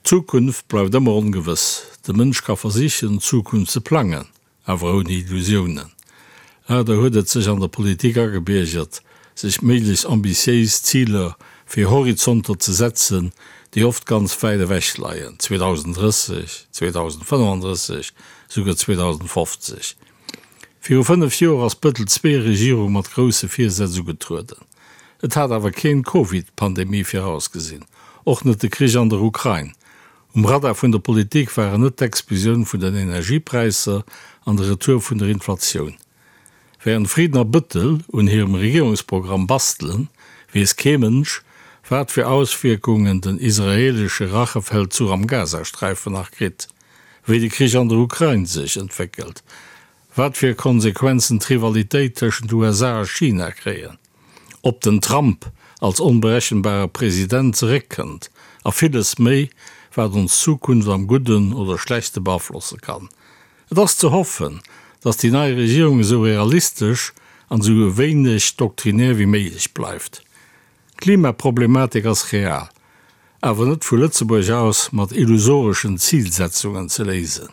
D'Zukunft bleift ëmmer ongewëss. De Mënsch ka versichen, d'Zukunft ze plangen, awer ouni Illusiounen. Leider huet et sech an der Politik agebiergert, sech méiglechst ambitiéis Ziler fir Horizonter ze setzen, déi oft ganz wäit ewech leien, 2030, 2035, souguer 2050. Viru 5 Joer ass d'Bëttel II-Regierung mat grousse Virsätz ugetrueden. Et hat awer keen d'Covid-Pandemie virausgesinn, och net de Krich an der Ukrain. Um Radar vun der Politik waren net d'Explosioun vun den Energiepräisser an de Retour vun der Inflatioun. Wärend Frieden a Bëttel un hirem Regierungsprogramm bastelen, weess kee Mënsch, wat fir Auswierkungen den israeelesche Rachefeldzuch am Gazasträifen nach kritt, wéi de Krich an der Ukrain sech entwéckelt, wat fir Konsequenzen d'Rivalitéit tëschent USA a China kréien, ob den Trump als onberechenbare President zeréckkënnt a villes méi, wat ons Zukunft am Gudden oder Schlechte beaflosse kann. Et ass ze hoffen, datt déi nei Regierung esou realistesch an esou wéineg doktrinär wéi méiglech bleift. D'Klimaproblematik ass real, awer net vu Lëtzebuerg aus mat illusoreschen Zilsetzungen ze léisen.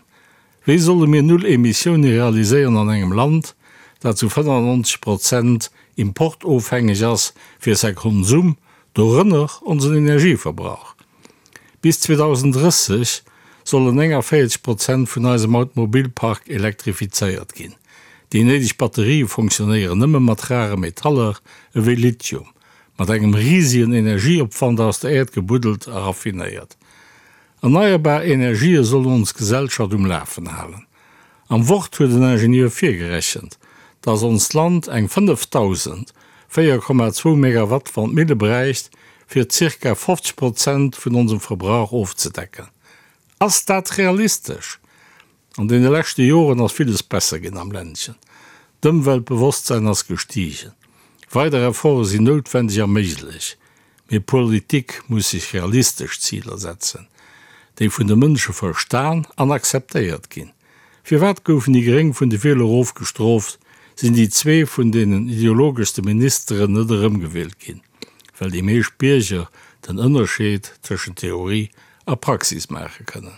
Wéi solle mir Null Emissioune realiséieren an engem Land, dat zu 95 Prozent importofhängeg ass fir säi Konsum, dorënner onsen Energieverbrauch? Bis 2030 sollen 49 Prozent vun eisem Automobilpark elektrifizéiert ginn. Déi néideg Batterië fonctionnéieren nëmme mat rare Metaller ewéi Lithium, mat engem risegen Energieopwand aus der Äerd gebuddelt a raffinéiert. Erneierbar Energië sollen ons Gesellschaft um Lafen halen. Am Wort huet en Ingenieur virgerechent, dass onst Land eng 5.004,2 Megawatt Wandmille bräicht, fir zirka 50 Prozent vun onsem Verbrauch ofzedecken. Ass dat realistesch? An deene leschte Joren ass villes besser ginn am Ländchen. D'Ëmweltbewosstsäin ass gestigen. Weider Efforte sinn noutwendeg a méiglech. Mee Politik muss sech realistesch Ziler setzen, déi vun de Mënsche verstan an akzeptéiert ginn. Firwat goufen déi Gréng vun de Wieler ofgestrooft, sinn déi zwee vun deenen ideologeschste Ministeren net erëmgewielt ginn? Well déi meescht Bierger den Ënnerscheed tëschent Theorie a Praxis maache kënnen.